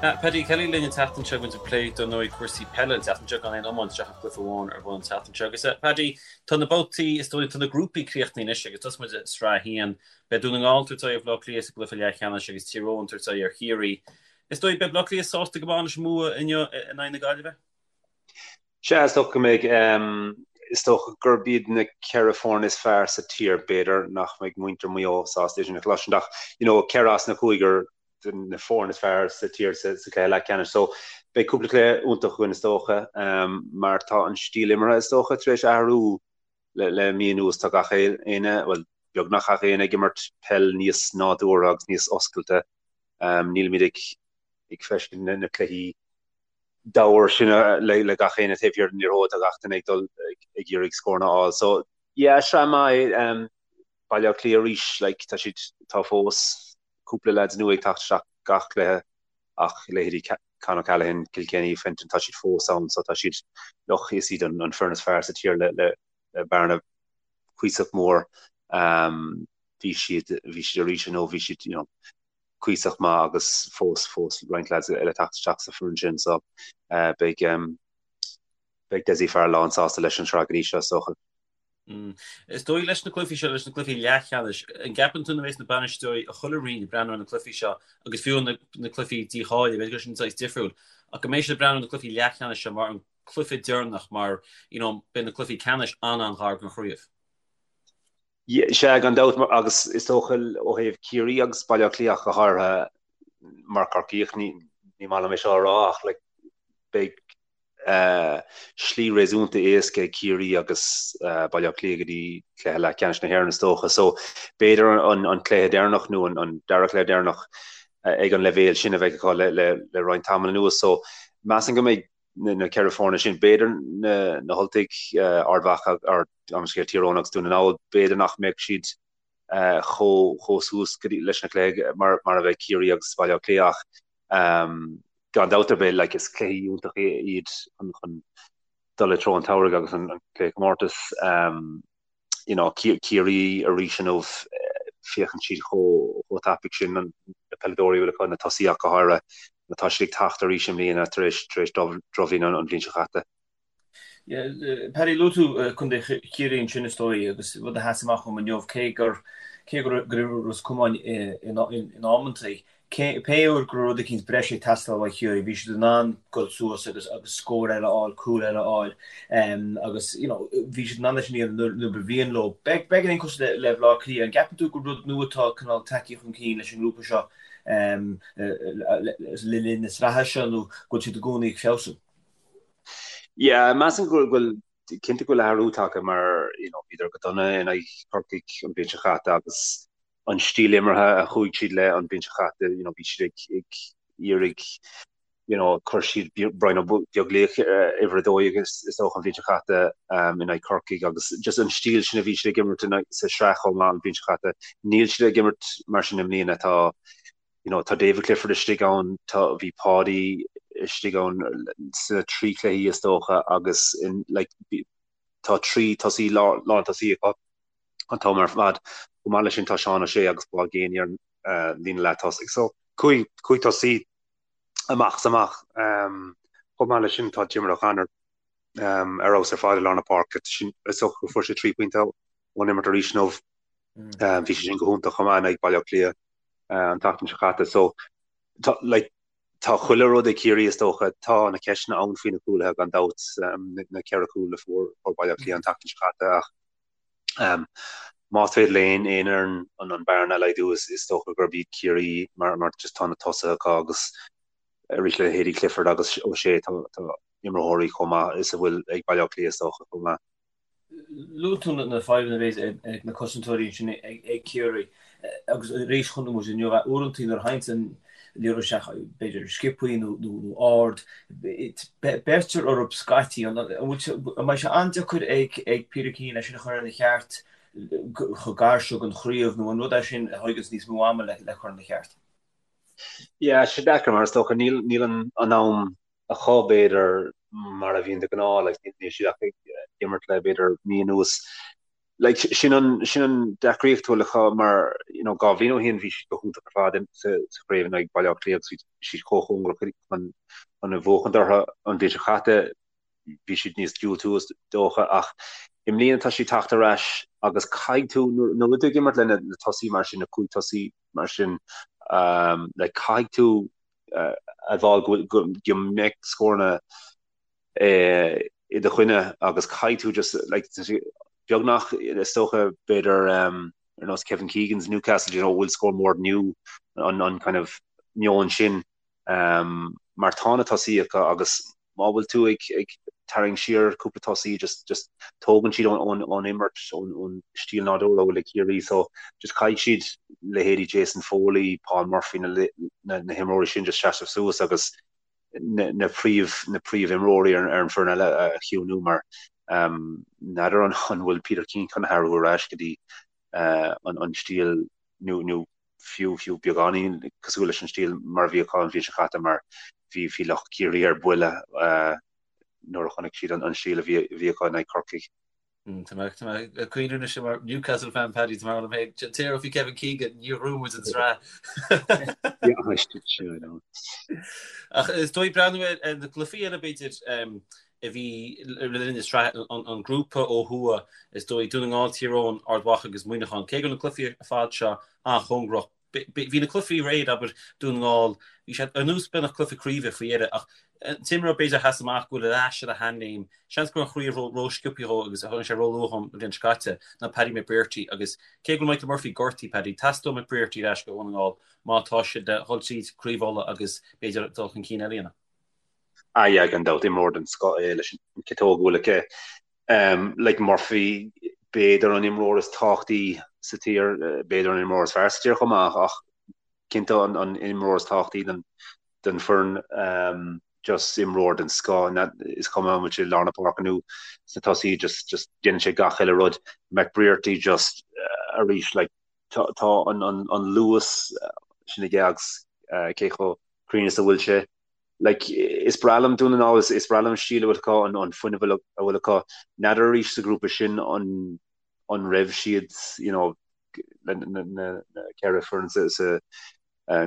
Paddy Kelly linn an tseachtain seo muid ag plé dar ndóigh cúrsaí peile an tseachtain seo gan aon iomáint ach an cluiche amháin ar bun an tseachtain seo. Agus Paddy, tá na babhtaí, is dóigh, tá na grúpaí críochnaithe anois agus tosóidh muid i Sraith 1. Beidh Dún na nGall ag tabhairt aghaidh ar Bhaile Átha Cliath sa gcluiche leathcheannais agus Tír Eoghain ag tabhairt aghaidh ar Chiarraí. Is dóigh, beidh Baile Átha Cliath sásta go maith leis an mbua inniu in aghaidh na Gaillimhe? Sea, is dócha go mbeidh. Is dócha gurb iad na 4 foireann is fearr sa tír. B'fhéidir nach mbeidh muintir Mhaigh Eo sásta é sin a chloisint ach, you know, 4 as na cúigear de na foirne is fearr sa tír sa chluiche leathcheannais. So, beidh cúpla cluiche iontach againn is dócha, mar tá an stíl imeartha is dócha tar éis athrú le mí anuas. Tá gach éinne, bhuel, beagnach gach éinne ag imirt peil níos nádúrtha agus níos oscailte. Nílimid ag ag feiscint na cluichí diamhair sin le gach éinne taobh thiar den liathróid, tá gach duine ag dul ag iarraidh scóranna a fháil. So yeah, sraith maith é. Baile Átha Cliath arís, like, tá siad, tá fós cúpla lads nua ag teacht isteach gach cluiche ach leithéidí Con O'Callaghan, Kilkenny, Fenton, tá siad fós ann so tá siad, look, is iad an foireann is fearr sa tír le, le, le bearna cuíosach mór. Um, bhí siad, bhí siad arís inniu, bhí siad, you know, cuíosach maith agus fós fós roinnt lads eile teacht isteach sa foireann sin so beidh beidh Dessie Farrell lán sásta leis an sraith go dtí seo is dócha. Is dóigh leis na cluichí seo, leis na cluichí leathcheannais, an gceapann tú na bheas na bainisteoirí i chuile roinn ag breathnú ar na cluichí seo agus fiú na na cluichí dícháilithe, b'fhéidir go sin saghas difriúil, ach go mbeidh siad ag breathnú ar na cluichí leathcheannais seo mar an cluiche deireanach mar you know beidh na cluichí ceannais an-an-ghar don chraobh. Sea, gan dabht, agus is dócha ó thaobh Ciarraí agus Baile Átha Cliath ach go háirithe, mar Corcaíoch, ní maith liom é seo a rá ach like beidh slí réasúnta éasca ag Ciarraí agus Baile Átha Cliath go dtí cluiche leathcheannais na hÉireann is dócha. So b'fhéidir an cluiche deireanach nó an dara cluiche deireanach ag an leibhéal sin a bheidh acu le roinnt tamall anuas. So measaim go mbeidh na 4 foirne sin, b'fhéidir na hUltaigh, Ard Mhacha, gabh mo leithscéal, Tír Eoghain agus Dún na nGall, b'fhéidir nach mbeadh siad chomh suas leis na cluichí mar a bheidh Ciarraí agus Baile Átha Cliath ach gan dabht ar bith like is cluichí iontacha iad chun dul i dtreo an tsamhraidh agus an cluiche comórtais. You know, Ciarraí arís inniu, féachann siad chomh tapaidh sin, na peileadóirí a bhfuil acu, na tosaithe ach go háirithe, tá siad ag teacht arís i mbliana tar éis tar éis drochbhliain an bhliain seo caite. Paddy, luaigh tú Contae Chiarraí ansin is dóigh agus rud a sheas amach dhom inniu, cé gur cé go raibh Ros Comáin in amantaí, Pé uair go raibh rud eicínt breise ag teastáil ó Chiarraí, bhí siad in ann dul suas agus agus scór eile a fháil, cúl eile a fháil agus you know bhí siad in ann é sin a dhéanamh nuair ba mhian leo. Beagáinín cosúil le Bhaile Átha Cliath, an gceapann tú gur rud nua atá cineál tagtha chun cinn leis an ngrúpa seo le linn na sraithe seo nó go bhfuil siad i gcónaí ag feabhsú? Yeah, measaim go bhfuil cinnte go bhfuil athrú tagtha mar you know bhíodar go dona in aghaidh Chorcaigh an bhliain seo caite agus an stíl imeartha a chuaigh siad le an bhliain seo caite, you know, bhí siad ag, ag iarraidh, you know, chuir siad Brian Ó Beaglaoich uimhir 12 is, is dócha an bhliain seo caite um, in aghaidh Corcaigh agus just an stíl sin a bhí siad ag imirt in, sa sraith chomh maith an bhliain seo caite. Níl siad ag imirt mar sin i mbliana, tá, you know, tá David Clifford istigh ann, tá, bhí Páidí istigh ann sna trí chluichí is dócha agus in, like, tá trí tosaí, lán tosaí acu. an t-am ar fad. Chomh maith leis sin tá Seán O'Shea agus Paul Geaney ar an líne leath-tosaigh. So cúig tosaí amach is amach. Chomh maith leis sin tá Diarmuid O'Connor ar fheabhas ar fad i lár na páirce. Is dócha go fuair sé 3 pointe ón imirt arís inniu. Bhí sé sin go hiontach chomh maith in aghaidh Baile Átha Cliath an tseachtain seo caite. So tá like tá chuile rud ag Ciarraí is dócha. Tá na ceisteanna ann faoi na cúlaithe gan dabht, na ceithre chúl a fuair Baile Átha Cliath an tseachtain seo caite ach Más féidir le aon fhoireann an bearna a laghdú is dócha gurb iad Ciarraí mar just tá na tosaithe acu agus arís le leithéidí Clifford agus O'Shea tá imreoirí chomh maith is a bhfuil ag Baile Átha Cliath is dócha chomh maith. Luaigh tú na fadhbanna a bheas ag na cosantóirí ansin ag Ciarraí agus arís chonaic muid inniu uaireanta nuair a thagann an liathróid isteach b'fhéidir sciobthaí nó ard, beirtear orthu scaití. An mbeidh sé an-deacair ag Peter Keane é sin a chur ina cheart chomh gar seo don chraobh nó an rud é sin a thóganns níos mó ama le cur ina cheart? Yeah, sé deacair mar is dócha níl níl an an am acu b'fhéidir mar a bhíonn de ghnáth, like níl siad ach ag imirt le b'fhéidir mí anuas. Like sin an sin an deacraíocht a bhfuil acu mar you know 2 bhliain ó shin bhí siad go hiontach ar fad sa sa chraobh in aghaidh Baile Átha Cliath agus bhí siad chomh cóngarach chun chun a bhuachaint orthu an bhliain seo caite bhí siad níos diúltaí is dócha ach i mbliana tá siad teacht ar ais agus caithfidh tú nuair nuair a bhfuil tú ag imirt le na na tosaí mar sin na cúig tosaí mar sin um, like caithfidh tú uh, admháil go go go mbeidh scóranna i do choinne agus caithfidh tú just like beagnach is dócha b'fhéidir um, ar nós Kevin Keegan's Newcastle you know bhfuil scór more than you an, an kind of meon sin um, mar tá na tosaí acu agus má bhfuil tú ag, ag tarraingt siar cúpla tosaí just, just tógann siad ón, ón, ón imirt ón, ón stíl nádúrtha a bhfuil ag Ciarraí so just caithfidh siad leithéidí Jason Foley, Paul Murphy na, na, na himreoirí sin just seasamh suas agus na príomh na príomhimreoirí ar an foireann eile a chiúnú mar n'fheadar an bhfuil Peter Keane chun athrú ar ais go dtí an stíl nó nó fiú fiú beagáinín cosúil leis an stíl mar a bhí acu an bhliain seo caite mar bhí bhí lucht Ciarraí ar buile nuair a chonaic siad an stíl a bhí acu in aghaidh Corcaigh. Tá mé ag cuimhneamh anois mar Newcastle fan Paddy tá mé liom féin. An té a raibh faoi Kevin Keegan níor ghnóthaigh muid an tsraith. Ach is dóigh breathnú ar na cluichí eile b'fhéidir a bhí le linn na sraithe an grúpa ó thuaidh is dóigh Dún na nGall, Tír Eoghain, Ard Mhacha agus Muineachán. Cé go raibh na cluichí ar fad seo an-chóngarach Bhí na cluichí aréir, abair, Dún na nGall, bhí siad ar nós beagnach cluiche craoibhe faoi dheireadh ach an t-imreoir b'fhéidir a sheas amach go bhfuil ar ais ar a sheanléim, seans go raibh an chraobh ró-sciobtha dhó agus tháinig sé róluath an bhliain seo caite, ná Paddy McBrearty agus cé go bhfuil Michael Murphy gortaithe, Paddy, teastóidh McBrearty ar ais go Dhún na nGall má tá siad le dhul tríd Craobh Uladh agus b'fhéidir dul chun cinn eile a dhéanamh. Ah yeah, gan dabht, imreoir den scoth é leis an ciotóg a bhfuil aici. Like Murphy, b'fhéidir an imreoir is tábhachtaí sa tír, b'fhéidir an imreoir is fearr sa tír chomh maith, ach cinnte an imreoir is tábhachtaí don foireann. Just imreoir den scoth, is cuma an bhfuil sé i lár na páirce nó sna tosaí, just just déanann sé gach uile rud. McBrearty just arís like tá an luas sin aige agus cé chomh cruinn is a bhfuil sé. Like, is breá liom Dún na nGall, is breá liom an stíl a bhfuil acu, an fuinneamh a bhfuil acu. N'fheadar arís sa ghrúpa sin an an raibh siad, you know, na ceithre foireann sa sa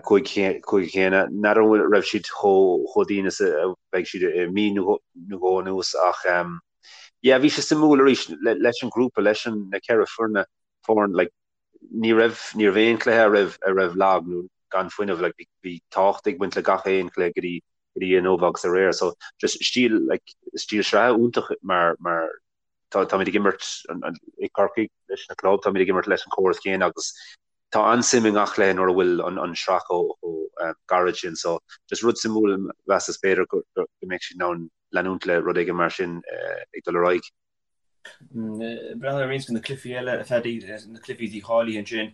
cúige céanna, n'fheadar an raibh siad chomh chomh dian is a bheidh siad i mí nó dhó anuas ach yeah, bhí sé suimiúil arís leis an ghrúpa, leis an na ceithre foirne, foireann, like, ní raibh, ní raibh aon chluiche a raibh, a raibh lag nó gan fuinneamh, like bhí, bhí tábhacht ag baint le gach aon chluiche go dtí, go dtí inniu agus aréir. So just stíl, like stíl sraithe iontach mar, mar tá, táimid ag imirt an, an, i Corcaigh leis na club, táimid ag imirt leis an chóras céanna agus tá an-suim i ngach cluiche nuair a bhfuil an, an sraith chomh, chomh um, gairid sin. So just rud suimiúil mheasas b'fhéidir go, go, go mbeidh siad in ann leanúint le rud éigin mar sin uh, ag dul ar aghaidh. Breathnú ar roinnt de na cluichí eile, a Phaddy, na cluichí dícháilithe ansin,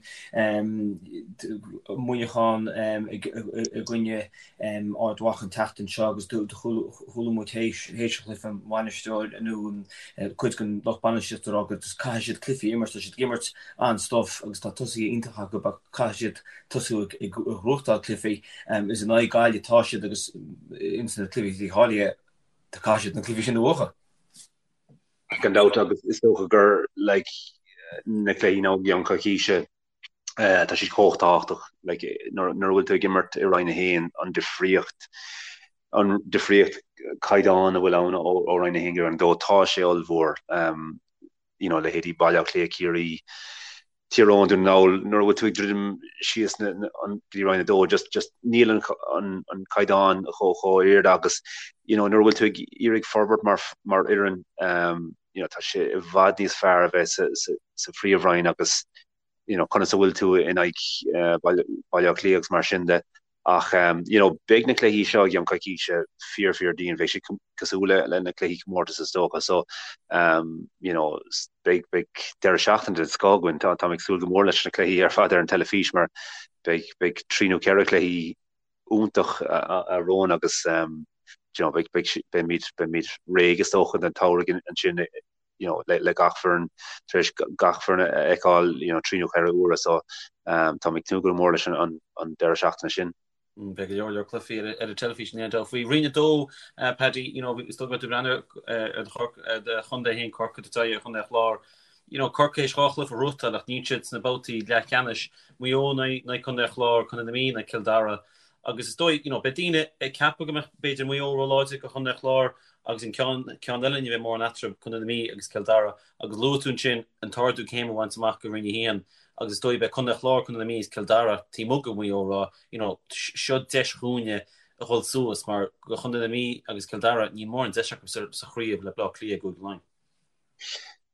Muineachán i gcoinne Ard Mhacha an tseachtain seo agus chuala muid théis an chluiche an bainisteoir nó cuid den lucht bainistíochta ag rá go caithfidh siad cluichí a imirt, tá siad ag imirt an-stuif agus tá tosaithe iontacha acu ach caithfidh siad tosú ag gnóthachtáil cluichí. Is in aghaidh Gaillimh atá siad agus ins na cluichí dícháilithe caithfidh siad na cluichí sin a bhuachan. Gan dabht agus is dócha gur like na cluichí i gceann coicíse tá siad chomh tábhachtach like nuair a bhfuil tú ag imirt i Roinn 1 an difríocht an difríocht caighdeán a bhfuil ann ó Roinn 1 go Roinn 2 tá sé ollmhór um, you know leithéidí Baile Átha Cliath, Ciarraí, Tír Eoghain, Dún na nGall, nuair a bhfuil tú ag druidim síos na, na, an, go dtí Roinn 2, just, just níl an, an, an caighdeán chomh, chomh ard agus, you know, nuair a bhfuil tú ag iarraidh forbairt mar, mar fhoireann, um, you know, tá sé i bhfad níos fearr a bheith sa, sa, sa phríomhroinn agus, you know, conas a bhfuil tú in aghaidh uh, Baile, Baile Átha Cliath agus mar sin de. Ach you know beidh na cluichí seo i gceann coicíse fíor fíor dian, beidh siad cosúil le na cluichí comórtais is dócha. So you know beidh beidh deireadh seachtaine den scoth againn. Tá táim ag súil go mór leis na cluichí ar fad ar an teilifís mar beidh beidh trí nó ceithre cluichí iontach romhainn agus you know beidh beidh beimid beimid réidh is dócha don tsamhradh ansin you know, le, le gach foireann, tar éis gach foireann a fheiceáil, you know, trí nó ceithre huaire so um, táim ag tnúth go mór leis an, an, an deireadh seachtaine sin. Mm, beidh go leor leor cluichí ar, ar an teilifís in aon dul faoi. Roinn 2, uh, Paddy, you know, is dóigh go mbeidh tú ag breathnú ar do, do chontae féin Corcaigh, do chontae an Chláir. You know, Corcaigh théis 2 chluiche a ghnóthachtáil ach níl siad sna babhtaí leathcheannais. Maigh Eo in aghaidh Contae an Chláir, Contae na Mí in aghaidh Cill Dara. Agus is dóigh, you know, beidh daoine ag ceapadh go mbeadh b'fhéidir Maigh Eo róláidir do Chontae an Chláir agus an ceann, ceann eile ní bheidh mórán eatarthu, Contae na Mí agus Cill Dara. Agus luaigh tú ansin an t-ardú céime a bhaint amach go Roinn 1 agus is dóigh beidh Contae an Chláir, Contae na Mí agus Cill Dara taobh amuigh de Mhaigh Eo ag rá, you know, seo deis dhúinne a dhul suas mar do Chontae na Mí agus Cill Dara níl mórán deis acu sa chraobh le Bleá Cliath i gCúige Laighean.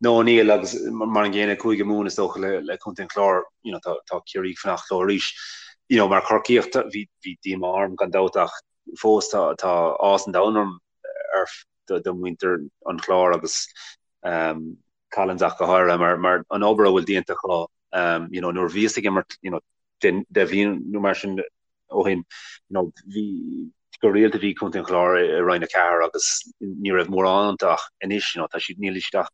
No, níl, agus mar an gcéanna Cúige Mumhan is dócha le Contae an Chláir, you know, tá tá Ciarraí ag fanacht leo arís. You know, mar Chorcaíoch bhí bhí díomá orm gan dabht ach fós tá tá áthas an domhain orm ar do do mhuintir an Chláir agus um, Collins ach go háirithe mar mar an obair a bhfuil déanta acu um, you know, nuair a bhíos ag imirt you know, 10 bhliain nó mar sin ó shin, you know, bhí go rialta bhí Contae an Chláir i Roinn 4 agus ní raibh mórán iontu ach anois, you know, tá siad, níl siad ach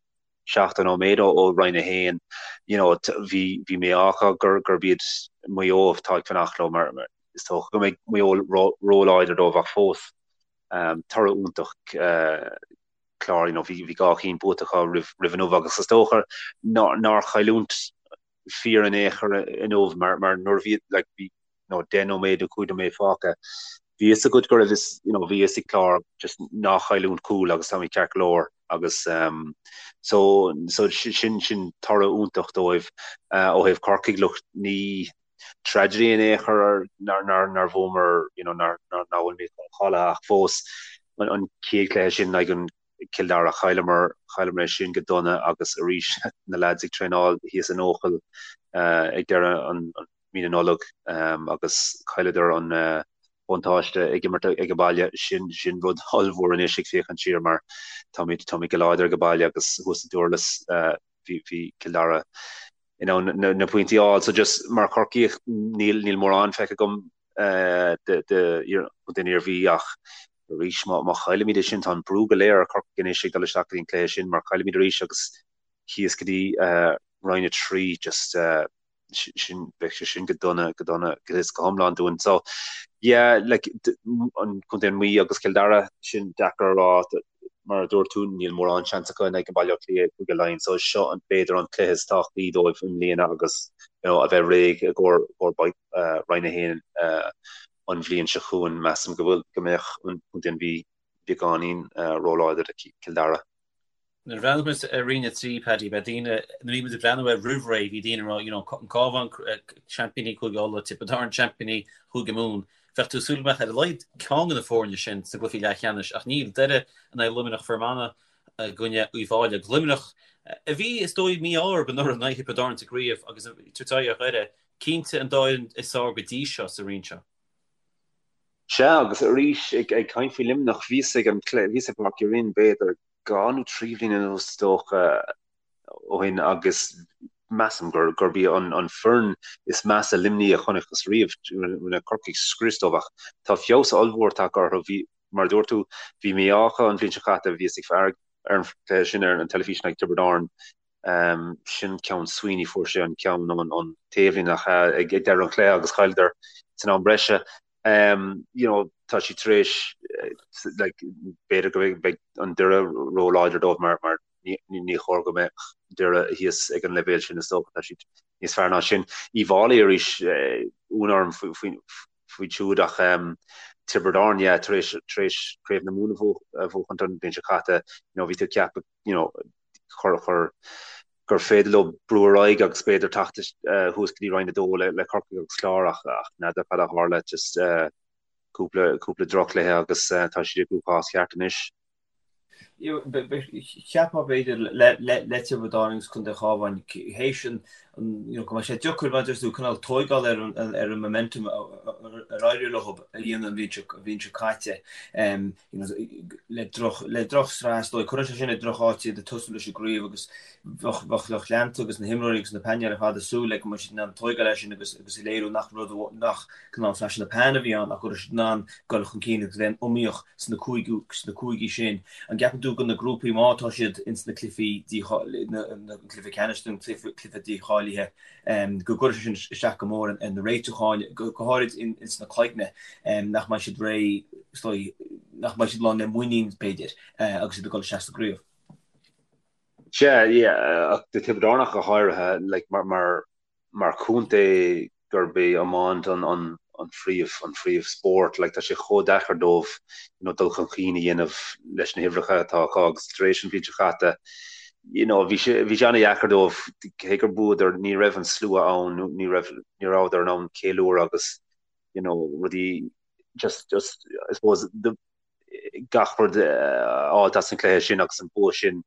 70 nóiméad ó Roinn 1, you know, bhí, bhí mí-ádh acu gur, gurb iad Maigh Eo atá ag fanacht leo mar, mar is dócha go mbeidh Maigh Eo ró-láidir dóibh ach fós, um, toradh iontach, uh, Clár, you know, bhí, bhí 2 chinn buaite acu roimh, roimh inniu agus is dócha nár, nár chailliúint fíor in aon chor inniu mar mar nuair a bhí like bhí you know 10 nóiméad nó 5 nóiméad fágtha bhí fhios agat go raibh fhios you know bhí fhios ag Clár just ná chailliúint cúl agus táimid ceart go leor agus um, so so sin sin toradh iontach dóibh uh, ó thaobh Corcaigh look ní tragedy in aon chor nár nár nár bhuamar you know nár nár ná bhfuil mé cháilithe ach fós an, an chéad chluiche sin like an Cill Dara. Chailleamar, chailleamar é sin go dona agus arís na leaids ag traenáil thíos in Eochaill ag deireadh an mí na Nollag agus chailleadar an buntáiste ag imirt ag baile. Sin, sin rud ollmhór anois ag féachaint siar mar táimid, táimid go láidir ag baile agus thuas i Durlas bhí, bhí Cill Dara in ann na, na pointí a fháil. So just mar Chorcaíoch níl, níl mórán feicthe agam de, de, den Iarmhí ach Arís, má chaillimid é sin, tá an brú go léir ar Chorcaigh anois ag dul isteach go dtí an cluiche sin, mar caillimid arís agus thíos go dtí Roinn 3, just sin, bheadh sé sin go dona, go dona, go is go hiomlán dúinn. So, yeah, like, an Contae an Mhí agus Cill Dara, sin deacair a rá, mar a dúirt tú, níl mórán seans acu in aghaidh Baile Átha Cliath i gCúige Laighean, so seo an, b'fhéidir an cluiche is tábhachtaí dóibh i mbliana agus, you know, a bheith réidh i gcomhair Roinn 1 an bhliain seo chugainn, measaim go bhfuil, go mbeadh an Contae an Mhí beagáinín róláidir do Chill Dara. Nuair a bhreathnaigh muid ar Roinn 3, Paddy, beidh daoine, nuair a bhí muid ag breathnú air roimh ré, bhí daoine ag rá, you know, an Cabhán, seaimpíní Chúige Uladh, Tiobraid Árann, seaimpíní Chúige Mumhan. Bheadh tú ag súil go mbeadh ar a laghad ceann de na foirne sin sna gcluichí leathcheannais, ach níl. Doire in aghaidh Luimneach, Fear Manach i gcoinne Uíbh Fhailí agus Luimneach, a bhí, is dóigh, mí-ádh orthu anuraidh in aghaidh Thiobraid Árann sa gcraobh agus ag tabhairt aghaidh ar Dhoire, Cinnte an dá fhoireann is fearr go dtí seo sa roinn seo. Sea, agus arís, ag caint faoi Luimneach, bhíos ag an bhíos i bPáirc Uí Rinn b'fhéidir 2 nó 3 bhliain anuas is dócha ó shin agus measaim gur gurb í an an foireann is measa Luimnigh a chonacthas riamh. Rinne Corcaigh scrios dóibh ach tá feabhas ollmhór tagtha orthu. Bhí, mar a dúirt tú, bhí mí-ádh acu an bhliain seo caite, bhíos ag faire ar an chluiche sin ar an teilifís in aghaidh Tiobraid Árann Sin ceann Sweeney, fuair sé an ceann ón taobhlíne ach ag deireadh an chluiche agus chailleadar san am breise. You know, tá siad tar éis like, b'fhéidir go mbeidh an Doire róláidir dóibh mar, mar ní, ní chóir go mbeadh Doire thíos ag an leibhéal sin is dócha, tá siad níos fearr ná sin. Uíbh Fhailí arís, ionadh orm faoi, faoi, faoi siúd ach Tiobraid Árann, yeah, tar éis, tar éis Craobh na Mumhan a bhuachaint an bhliain seo caite, you know, bhí tú ag ceapadh, you know, chur, chur, gur féidir leo brú ar aghaidh agus b'fhéidir teacht thuas go dtí Roinn 2 le, le Corcaigh agus Clár ach, ach n'fheadar cad a tharla, just cúpla, cúpla drochchluiche agus tá siad i gcruachás ceart anois. Cheapfá b'fhéidir le, le, le Tiobraid Árann agus Contae an Chabháin théis an, you know, go mbeadh sé deacair mar a deir tú cineál tóigeáil ar an, ar an momentum ar éirigh leo a dhéanamh an bhliain seo, an bhliain seo caite. Le droch, le drochshraith is dóigh. Cuireann sé sin i droch-áit iad ag tosú leis an gcraobh agus bheadh, bheadh lucht leanta agus na himreoirí agus na painéil ar fad ag súil le go mbeadh siad in ann tóigeáil air sin agus, agus a léiriú nach rud, nach cineál flash in the pan a bhí ann ach go raibh siad in ann dul chun cinn agus bheith iomaíoch sna cúigiú, sna cúigí sin. An gceapann tú go na grúpaí má tá siad ins na cluichí díchá, na, na cluiche ceannais nó cluiche, cluiche dícháilithe, go gcuirfidh sé sin isteach go mór ar na réitiúcháin, go háirid ins na cloigne, nach mbeidh siad réidh, is dóigh, nach mbeidh siad lán le muinín, b'fhéidir, agus iad ag dul isteach sa gcraobh. Sea, yeah, ach do Tiobraid Árann ach go háirithe, like, mar, mar, mar chontae gurb é iomáint an, an, an phríomh, an phríomh spórt, like, tá sé chomh deacair dóibh, you know, dul chun cinn a dhéanamh leis na huimhreacha atá acu agus tar éis an bhliain seo caite, you know, bhí sé, bhí sé an-dheacair dóibh, cé gur bhuadar, ní raibh an slua ann, ní raibh, ní rabhadar in ann ceiliúradh agus, you know, rudaí, just, just, I suppose, the, gach rud a fháilt as an chluiche sin agus an bua sin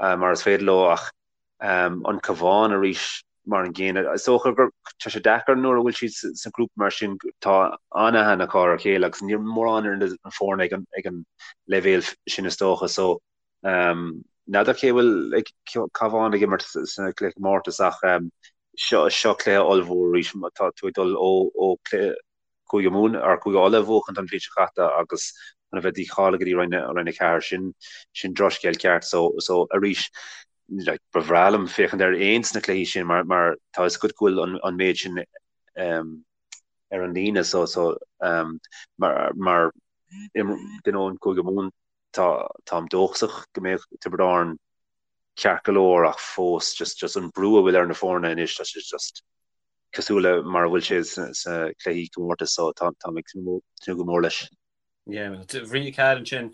mar is féidir leo ach an Cabhán arís mar an gcéanna. Is dócha gur tá sé deacair nuair a bhfuil siad sa ghrúpa mar sin tá an-aithne acu ar a chéile agus níl mórán ar na foirne ag an ag an leibhéal sin is dócha so n'fheadar cé bhfuil ag Cabhán ag imirt sa chluiche comórtais ach seo seo cluiche ollmhór arís tá tú ag dul ó ó cluiche Cúige Mumhan or Cúige Uladh a bhuachaint an bhliain seo caite agus chun a bheith dícháilithe go dtí Roinn Roinn 4 sin sin drochscéal ceart so so arís like ba bhreá liom féachaint ar aon de na cluichí sin mar mar tá fhios agat go bhfuil an an méid sin um, ar an líne so so um, mar mar duine ón Cúige Mumhan tá táim dóchasach go mbeidh Tiobraid Árann ceart go leor ach fós just just an brú a bhfuil ar na foirne anois tá sé just cosúil le mar a bhfuil sé sa chluichí comórtais so táim ag tnúth go mór leis. Yeah, Roinn 4 ansin,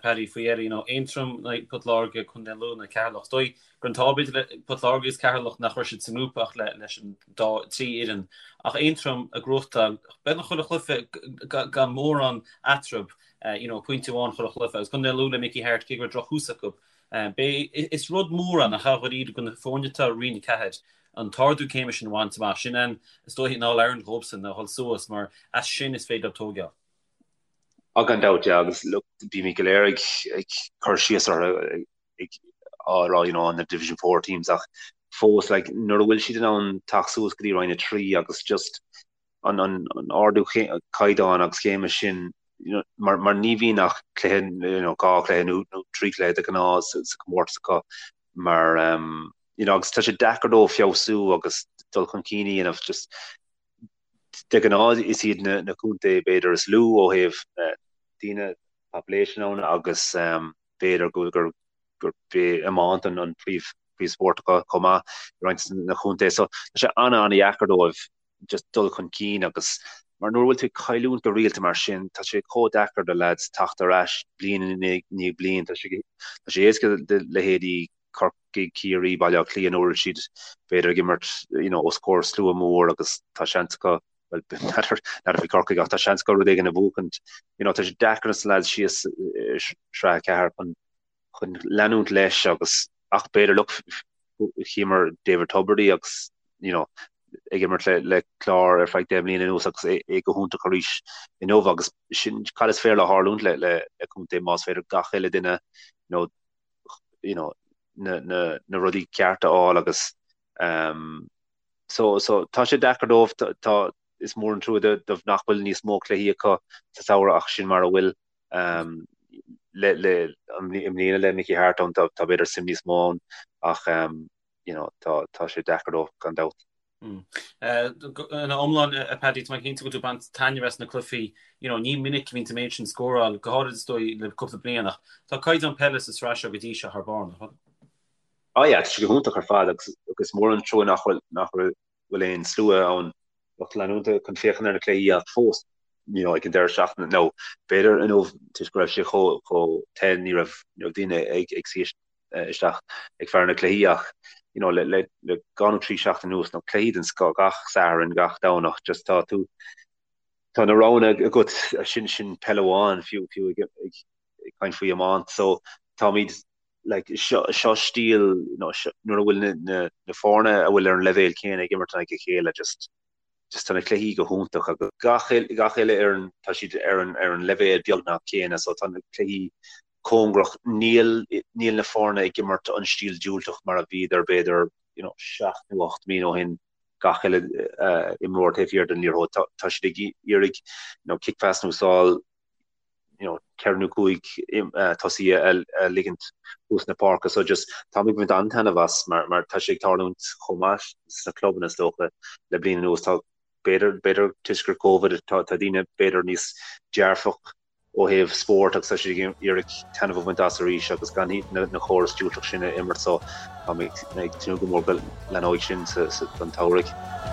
Paddy, faoi dheireadh, you know, Aontroim in aghaidh Port Láirge, Contae Lú in aghaidh Ceatharlach. Is dóigh gur an t-ádh b'fhéidir le Port Láirge agus Ceatharlach nach raibh siad sa ngrúpa ach leis an dá, trí fhoireann. Ach Aontroim ag gnóthachtáil beagnach chuile chluiche gan mórán eatarthu, you know, pointe amháin chuile chluiche. Agus Contae Lú le Mickey Harte, cé go raibh drochthús acu, Beidh, is rud mór ann, nach ea, dháiríre, do na foirne atá i Roinn 4, an t-ardú céime sin a bhaint amach. Sin an, is dóiche, an All-Ireland dhóibhsan, a dhul suas, mar as sin is féidir leo tóigeáil. Á, gan dabht, yeah, agus look, bímid go léir ag, ag cur síos orthu, ag, á rá, you know, na Division 4 teams, ach fós, like, nuair a bhfuil siad in ann teacht suas go dtí Roinn 3 agus just an, an, an ardú caighdeáin agus céime sin, you know, mar, mar ní bhíonn ach cluiche, you know, 2 chluiche nó, nó 3 chluiche de ghnáth sa, sa chomórtas acu mar, um, you know, agus tá sé deacair dóibh feabhsú agus dul chun cinn a dhéanamh just de ghnáth is iad na, na contae b'fhéidir is lú ó thaobh uh, daoine population ann agus um, b'fhéidir go gur gur b'é iomáint an, an príomh príomhspórt acu chomh maith i roinnt na chontae so tá sé ana ana dheacair dóibh just dul chun cinn agus mar nuair a bhfuil tú ag cailliúint go rialta mar sin tá sé chomh deacair do lads teacht ar ais bliain i ndiaidh bliain tá sé tá sé éasca do leithéidí Corcaigh, Ciarraí, Baile Átha Cliath nuair a bhfuil siad b'fhéidir ag imirt you know os comhair slua mór agus tá seans acu well n'fheadar n'fheadar faoi Corcaigh ach tá seans acu rud éigin a bhuachaint you know tá sé deacair dos na lads síos i Sraith 4 chun chun leanúint leis agus ach b'fhéidir look chíomar David Tubridy agus you know ag imirt le le Clár ar feadh 10 mbliana anuas agus é, é go hiontach arís inniu agus sin cad is féidir le tharlúint le le le contae más féidir gach uile duine you know, you know, na, na, na rudaí cearta a fháil agus um, so, so tá sé deacair dóibh tá, tá is mór an trua dóibh nach bhfuil níos mó cluichí acu sa samhradh ach sin mar a bhfuil um, le, le, i mbliana le Mickey Harte ann tá, tá b'fhéidir suim níos mó ann ach um, you know, tá, tá sé deacair dóibh gan dabht. Mm. Ina iomlán, a Paddy, tá mé cinnte go bhfuil tú ag baint taitneamh as na cluichí, you know, ní minic a bhíonn an méid sin scóráil, go háirid is dóigh le cúpla bliain ach tá caighdeán peile sa sraith seo go dtí seo thar barr, nach bhfuil? Oh yeah, tá sé go hiontach ar fad agus agus is mór an trua nach bhfuil nach bhfuil aon slua ann lucht leanúnta chun féachaint ar na cluichí ach fós you know, ag an deireadh seachtaine nó b'fhéidir inniu toisc go raibh sé chomh chomh te ní raibh ní raibh daoine ag ag suí isteach ag faire na cluichí ach you know, le le le dhá nó trí seachtain anuas nó cluichí den scoth gach Satharn gach Domhnach just tá tú tá na roghanna agat sin sin peil amháin fiú fiú ag ag ag caint faoi iomáint so táimid like seo seo stíl you know, seo, nuair a bhfuil na, na, na foirne a bhfuil ar an leibhéal céanna ag imirt in aghaidh a chéile just just tá na cluichí go hiontach agus gach gach uile fhoireann tá siad ar an ar an leibhéal beagnach céanna so tá na cluichí cóngarach níl níl na foirne ag imirt an stíl diúltach mar a bhíodar b'fhéidir you know, 7 nó 8 mbliana ó shin gach uile uh, imreoir taobh thiar den liathróid tá, tá siad ag iarraidh you know, kick pass a úsáid you know, 4 nó 5 uh, tosaí a, a ligint thuas na páirce so just táim ag baint an-taitneamh as mar, mar tá sé ag tarlúint chomh maith sna clubanna is dócha le bliain anuas tá b'fhéidir b'fhéidir toisc gur Covid tá, tá daoine b'fhéidir níos dearfach. ó thaobh spóirt agus tá siad ag iarraidh taitneamh a bhaint as arís agus gan na córas diúltach sin a imirt so tá mé ag tnúth go mór go leathnóidh sin don tsamhraidh.